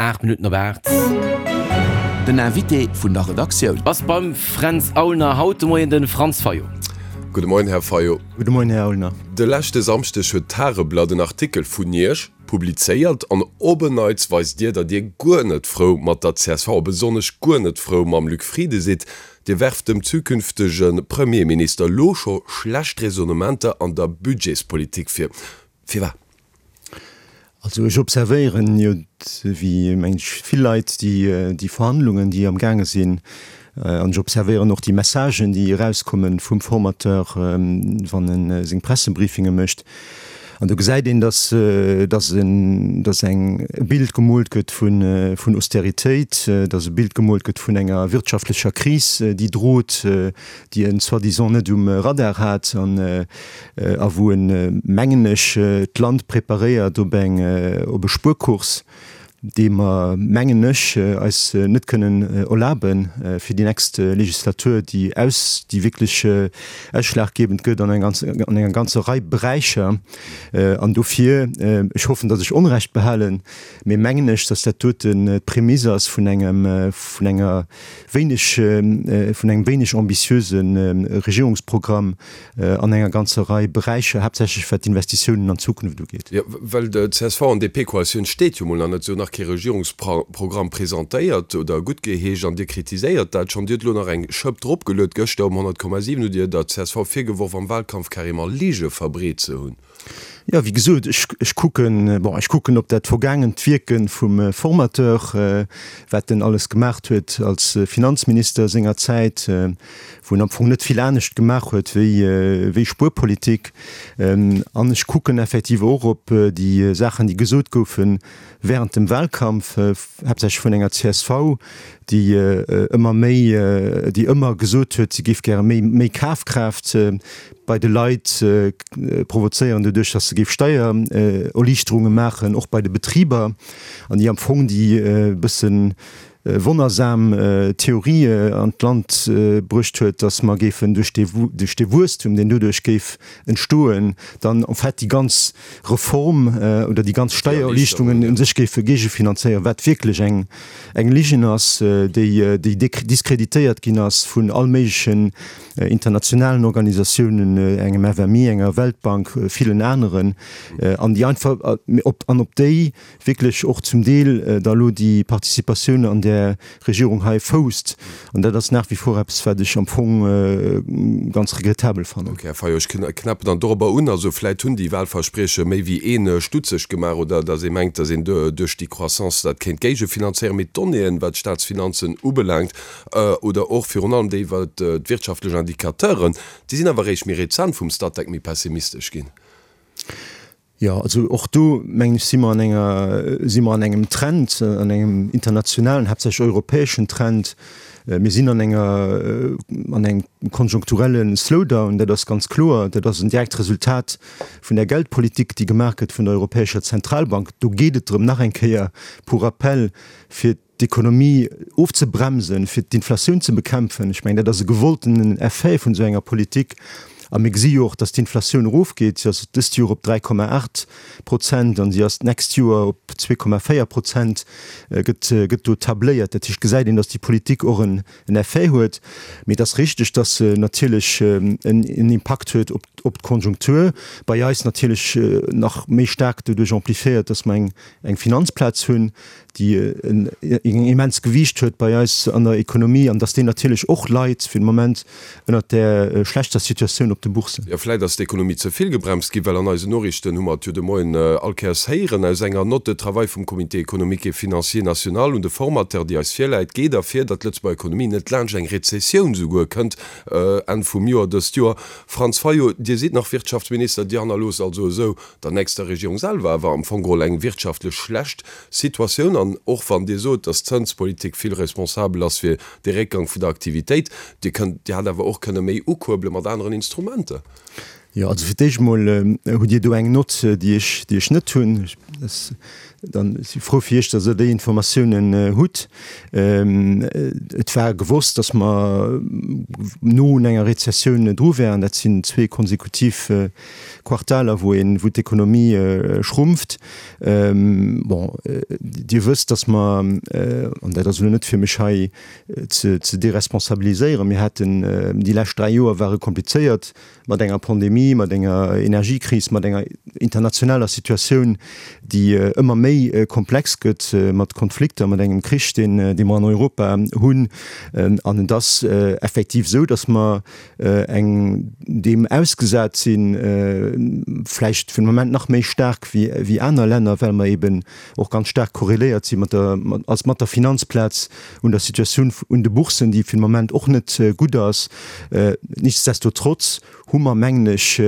8 Minutten op 8. Den Invité vun der Redaktioun. Ass beim Fränz Aulner haut de Moien de Franz Fayot. Gudde Moien, Här Fayot. Gudde Moien, Här Aulner. De leschte Samschdeg huet d'Tageblatt en Artikel vun Iech publizéiert an op en Neits weist Dir, datt Dir guer net frou mat der csv a besonnesch guer net frou mam Luc Frieden sidd. Dir werft dem zukünftege Premierminister elo scho schlecht Raisonnementer an der Budgetspolitik vir. Firwat? Also ech observéieren jo, wéi meng ech vill Leit, déi Verhandlungen, déi am gaange sinn, an ech observéieren och déi Messagen, déi erauskomme vum Formateur, wann e seng Pressebriefinge mécht. An do gesäit een, datt datt en datt eng e Bild gemoolt gëtt vun vun Austeritéit, datt e Bild gemoolt gëtt vun enger wirtschaftlecher Kris, déi drot, déi en soi-disant net um Radar hat an a wou en, mengen ech, d'Land preparéiert op eng op e Spuerkurs, dee mer, mengen ech, eis net kënnen erlabe fir déi nächst Legislatur, déi aus, déi wierklech ausschlaggebend gëtt an an enger ganzer Rei Beräicher. An dofir, ech hoffen, datt ech Onrecht behalen, mee mengen ech, datt dat doten d'Prämisse ass vun engem, vun enger wéineg, vun engem wéineg ambitiöse Regierungsprogramm, an enger ganzer Rei Beräicher, haaptsächlech wat d'Investitiounen an d'Zukunft ugeet. Jo, well d'CSV an DP-Koalitioun steet jo mol nach net, se hunn nach kee Regierungsprogramm presentéiert oder guttgeheescht an Dir kritiséiert dat schonn. Dir hutt elo nach eng Schëpp dropgeluet. Gëschter um 100,7 hutt Dir der csv virgeworf, am Wahlkampf carrément Lige verbreet ze hunn. Jo, wéi gesot, ech, ech kucken, bon, ech kucken op dat vergaangent Wierke vum Formateur, wat en alles gemaacht huet als Finanzminister sengerzäit, wou en am Fong net vill anescht gemaach huet wéi, wéi Spuerpolitik. An ech kucken effektiv och op déi Saachen, déi gesot goufe während dem Wahlkampf, haaptsächlech vun enger csv, déi ëmmer méi, déi ëmmer gesot huet, si géif gäre méi, méi Kafkraaft bei de Leit provozéieren, doduerch datt se géif Steiererliichterunge maachen, och bei de Betriber, an déi am Fong déi e bëssen wonnersam Theorie an d'Land bruecht huet, datt mer géifen duerch dee, duerch dee Wuesstum, deen doduerch géif entstoen, dann en fait déi ganz Reform oder déi ganz Steiererliichterungen u sech géife géigefinanzéieren, wat wierklech eng, eng Ligen ass, déi, déi diskreditéiert ginn ass vun all méiglechen internationalen Organisatiounen, engem FMI, enger Weltbank, villen aneren, an déi einfach, op, an op déi wierklech och zum Deel da elo déi Participatioun an där Regierung hei fousst. An dat ass nach wie vor eppes, wat ech am Fong ganz regrettabel fannen. Ok, Här Fayot, ech knäppen dann dorobber un. Also vläit hunn déi Wahlversprieche méi wéi een stutzeg gemaach oder datt ee mengt, datt een duerch déi Croissance dat kéint géigefinanzéieren. Mee d'Donnéeën, wat d'Staatsfinanzen ubelaangt oder och virun allem déi iwwer d'wirtschaftlech Indicateuren, déi sinn awer eréischt méi rezent vum Statec méi pessimistesch ginn. Jo, also och do, mengen ech, si mer an enger, si mer an engem Trend, an engem internationalen, haaptsächlech europäeschen Trend. Mir sinn an enger, an engem konjunkturelle Slowdown, dat ass ganz kloer. Dat ass en direkt Resultat vun der Geldpolitik, déi gemaach gëtt vun der Europäescher Zentralbank. Do geet et drëm, nach eng Kéier pour rappel, fir d'Ekonomie ofzebremsen, fir d'Inflatioun ze bekämpfen. Ech mengen, dat ass e gewolltenen Effet vun esou enger Politik. A mir gesi jo och, dass d'Inflatioun erofgeet. Si ass dëst Joer op 3,8 Prozent an si ass d'nächst Joer op 2,4 Prozent gëtt, gëtt do tabléiert. Dat heescht, gesäit een, dass déi Politik och en Effet huet. Mee et ass richteg, dass se natierlech en Impakt huet op, op d'Konjunktur. Bei eis natierlech nach méi staark doduerch amplifiéiert, dass mer eng, eng Finanzplaz hunn, déi en immens Gewiicht huet bei eis an der Ekonomie an dass déi natierlech och leit fir de Moment ënnert där schlechter Situatioun op de Boursen. Jo, vläit ass d'Ekonomie ze vill gebremst ginn, well an eisen Noriichten hu mer et jo de Moien all Kéiers héieren, aus enger Note de travail vum Comité économique et financier national un de Formateur, déi eis virläit, geet ervir, datt d'Lëtzebuerger Ekonomie net laanscht eng Rezessioun souguer kënnt Enn vum Joer dëst Joer. Franz Fayot, Dir sidd nach Wirtschaftsminister, Dir hannerloosst also esou der nächster Regierung selwer awer am Fong geholl eng wirtschaftlech schlecht Situatioun. An och wann Dir sot, datt d'Zënspolitik vill responsabel ass fir de Réckgang vun der Aktivitéit, Dir kënnt, Dir hätt awer och kënne méi ukuerbele mat aneren Instrumenter. Jo, also fir d'éischt emol hutt Dir do eng Nott, déi ech, déi ech net hunn. Dann si frou fir Iech, datt Der déi Informatiounen hutt. Et war gewosst, datt mer no un enger Rezessioun dru wären. Dat sinn zwee konsekutiv Quartaler, wou een, wou d'Ekonomie schrumpft. Bon, Dir wësst, datt mer, an dat ass elo net fir mech hei ze deresponsabiliséieren, mir haten, déi lescht 3 Joer ware komplizéiert, mat enger Pandemie, mat enger Energiekris, mat enger internationaler Situatioun, déi ëmmer méi komplex gëtt, mat Konflikter, mat engem Krich, deen dee mer an Europa hunn. An et ass effektiv esou, datt mer eng deem ausgesat sinn, vläicht fir de Moment nach méi staark wéi wéi aner Länner, well mer eben och ganz staark korreléiert si mat der als mat der Finanzplaz un der Situatioun un de Boursen, déi fir de Moment och net gutt ass. Nichtsdestotrotz hu mer, mengen ech,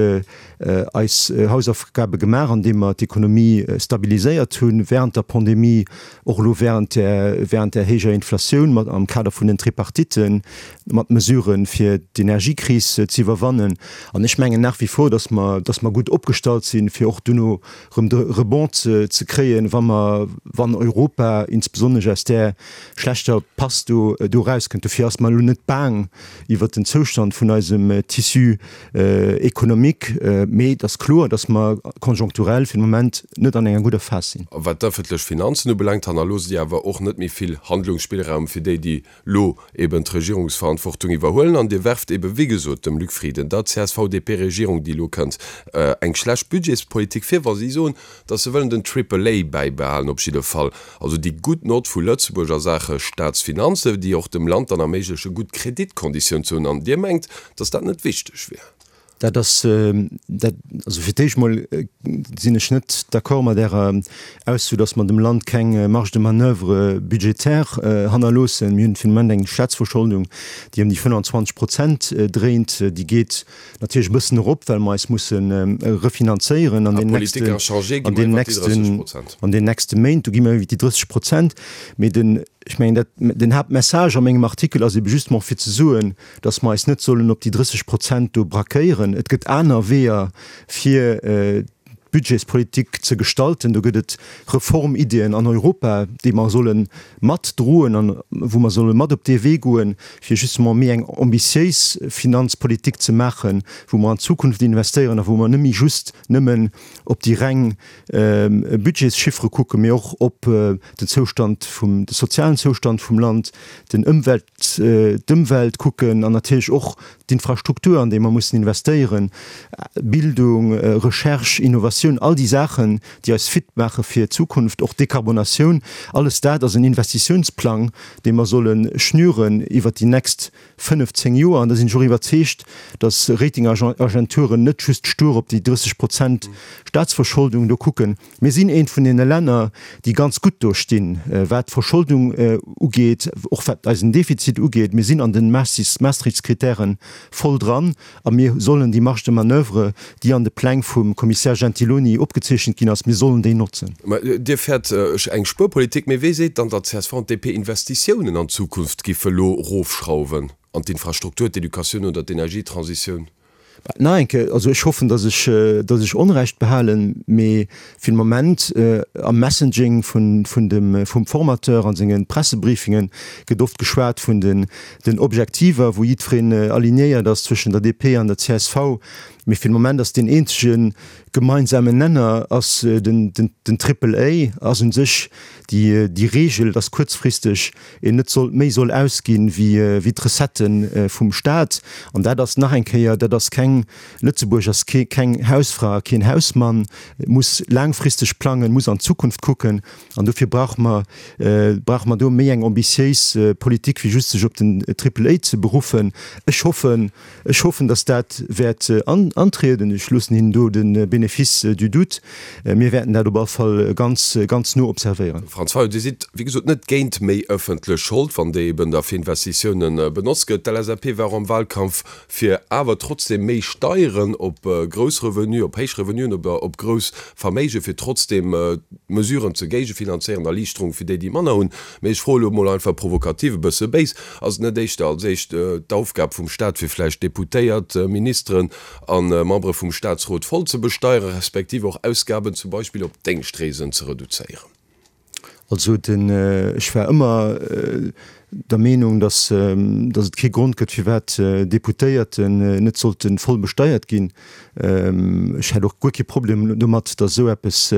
eis Hausaufgabe gemaach, andeem mer d'Ekonomie stabiliséiert hu während der Pandemie, och elo während där während där héijer Inflatioun mat am Kader vun den Tripartitten, mat Mesuren, fir d'Energiekris ze iwwerwannen. An ech mengen nach wie vor, dass mer dass mer gutt opgestallt sinn, fir och duerno erëm de Rebond ze kréien, wa mer, wann Europa insbesonnesch aus där schlechter Pass do do erauskënnt. Dofir ass mer elo net baang iwwert den Zoustand vun eisem Tissu économique, mee et ass kloer, datt mer konjonkturell fir de Moment net an enger gudder Phas sinn. A wat d'ëffentlech Finanzen ubelaangt, hannerloosst Dir awer och net méi vill Handlungsspillraum fir déi, déi lo eben d'Regierungsverantwortung iwwerhuelen an Dir werft eben, wéi gesot, dem Luc Frieden, der CSV-DP-Regierung, déi elo kënnt, eng schlecht Budgetspolitik vir, wa si soen, datt se wëllen den Triple A bäibehalen, op jidde Fall, also déi gutt Nott vu Lëtzebuerg a Saache Staatsfinanzen, déi och dem Land dann erméigleche gutt Kreditkonditioun ze hunn. An Dir mengt, datt dat net wichteg wier? Dat ass, dat, also fir d'éischt mol sinn ech net d'accord mat Ärer Ausso, datt mer dem Land keng Marge de manoeuvre budgétaire hannerloossen. Mir hunn fir de Moment eng Staatsverscholdung, déi ëm déi 25 Prozent dréint. Déi geet natierlech e bëssen erop, well mer eis musse refinanzéieren an deenen nächsten, an deenen nächsten, an deenen nächste Méint. Do gi mer iwwer déi 30 Prozent. Mee den, ech mengen dat, den Haaptmessage a mengem Artikel ass ebe justement fir ze soen, dass mer eis net sollen op déi 30 Prozent do braquéieren. Et gëtt aner Weeër, fir d'Budgetspolitik ze gestalten. Do gëtt et Reformiddien an Europa, déi mer solle matdroen an wou mer solle mat op dee Wee goen, fir justement méi eng ambitiéis Finanzpolitik ze maachen, wou mer an d'Zukunft investéieren a wou mer net méi just nëmmen op déi reng Budgetschiffere kucken, mee och op den Zoustand vum, de sozialen Zoustand vum Land, den Ëmwelt, d'Ëmwelt kucken an natierlech och d'Infrastruktur, an déi mer mussen investéieren, Bildung, Recherche, Innovatioun, all déi Saachen, déi eis fit maache fir d'Zukunft, och d'Dekarbonatioun, alles dat ass en Investitiounsplang, dee mer solle schnüren iwwert déi nächst 15 Joer. An da sinn ech och iwwerzeegt, datt Ratingagenturen net just stur op déi 30 Prozent Staatsverscholdung do kucken, Mir sinn eent vun deene Länner, déi ganz gutt do stinn, wat d'Verscholdung ugeet, och wat eisen Defizit ugeet. Mir sinn an de Maastrichtskritäre voll dran a mir sollen déi Marge de manoeuvre, déi an de Pläng vum Kommissär Gentiloni opgezeechent ginn ass, mir sollen déi notzen. Mä Dir fäert eng Spuerpolitik. Mee wee seet dann, datt csv an d'DP Investitiounen an d'Zukunft giffe lo rofschrauwen, an d'Infrastruktur, d'Educatioun oder d'Energietransitioun? Nach eng Kéier, also ech hoffen, datt ech, datt ech Onrecht behalen, mee fir de Moment am Messaging vun, vun dem, vum Formateur a senge Pressebriefinge gëtt oft geschwat vun den, den Objektiver, wou jiddwereen alignéiert ass zwëschen der DP an der csv. Mee fir de Moment ass deen eenzege gemeinsamen Nenner ass den, den, den Triple A ass u sech déi, déi Regel, datt kuerzfristeg een net sollt méi soll ausginn wéi wéi d'Recettë vum Staat. An dat ass nach eng Kéier, dat ass keng, Lëtzebuerg ass kee keng Hausfra a keen Hausmann, muss laangfristeg plangen, muss an d'Zukunft kucken. An dofir brauche mer brauche mer do méi eng ambitiéis Politik wéi just sech op den Triple A ze beruffen. Ech hoffen, Ech hoffen, dass dat wäert antrieden. Ech loossen hinnen do de Bénéfice du doute. Mir wäerten dat op all Fall ganz, ganz no observéieren. Franz Fayot, Dir sidd, wéi gesot, net géint méi ëffentlech Schold, wann déi eben da fir Investitiounen benotzt gëtt. D'LSAP war och am Wahlkampf fir awer trotzdem méi Steieren op grouss Revenuen, op héich Revenuen oder op grouss Verméigen, fir trotzdem Mesuren ze géigefinanzéieren, Erliichterung fir déi, déi manner hunn. Mee ech froe lo mol einfach provokativ, e bësse béis, Ass et net éischter als éischt d'Aufgab vum Staat fir vläicht Deputéiert, Ministeren a Membere vum Staatsrot voll ze besteieren, respektiv och Ausgaben zum Beispill op Déngschtreesen ze reduzéieren? Also den, ech war ëmmer der Meenung, datt, datt et kee Grond gëtt, firwat Deputéierten net sollte voll besteiert ginn. Ech hätt och guer kee Problem domat, datt esou eppes,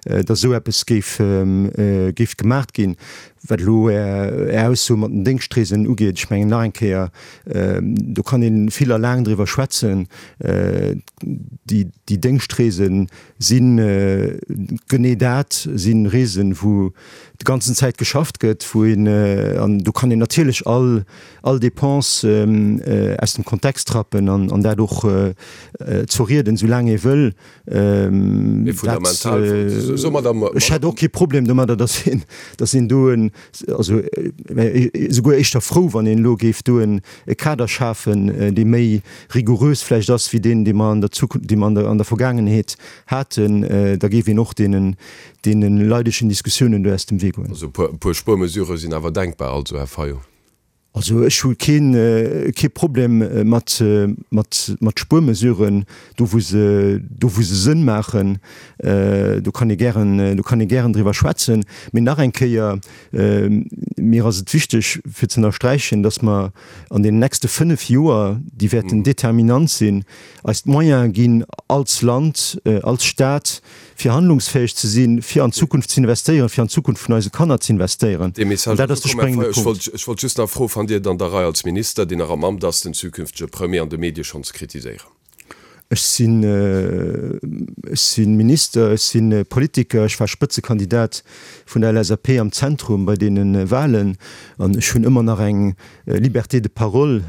datt esou eppes géif, géif gemaacht ginn. Wat elo Är Ausso mat den Déngschtreesen ugeet, ech mengen nach eng Kéier, do kann ee vill a laang driwwer schwätzen. Déi, déi Déngschtreesen, Sinn genee dat si Reesen, wou de ganzen Zäit geschafft gëtt, wou een, an do kann een natierlech all all Dépense aus dem Kontext rappen an an dat och zerrieden, esou laang ee wëll. Mee fundamental, soe mer da. Ech hätt och kee Problem domadder, datt een, datt een do en, also esouguer éischter frou, wann een elo géif do en Kader schafen, dee méi rigourös vläicht ass wéi deen, dee mer an der Zukunft, dee mer an der, an der Vergaangenheet haten, da géif een och deenen, deene leidegen Diskussiounen do aus dem Wee goen. Also e puer, e puer Spuermesurë sinn awer denkbar also, Här Fayot? Also ech hu keen, kee Problem mat, mat, mat Spuermesuren, do wou se, do wou se Sënn maachen. Do kann ee gären, do kann ee gären driwwer schwätzen. Mee nach eng Kéier, Mir ass et wichteg fir ze ënnersträichen, dass mer an deenen nächste 5 Joer, déi wäerten determinant sinn, eis d'Moyene ginn als Land, als Stat, fir handlungsfäeg ze sinn, fir an d'Zukunft ze investéieren, fir an d'Zukunft vun eise Kanner ze investéieren. Dee An Message dat ass ass de ukomm, Här spréngende Fayot. Ech Punkt. wollt, ech wollt just nach froen, Fannt Dir et an der Rei als Minister, deen nach am Amt ass, den zukünftege Premier an de Medie schonn ze kritiséieren? Ech sinn, ech si Minister, ech si Politiker, ech war Spëtzekandidat vun der LSAP am Zentrum bei deene Wahlen an ech hunn ëmmer nach eng Liberté de parole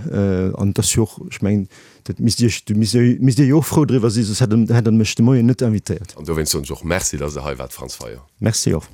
an et ass jo och, ech mengen, dat misst Iech, do misst Dir, misst Dir jo och frou driwwer sinn, soss hätt Der, hätt Der mech de Moien net invitéiert. An dowéinst soen ech och Merci, datt Der hei waart, Franz Fayot. Merci och.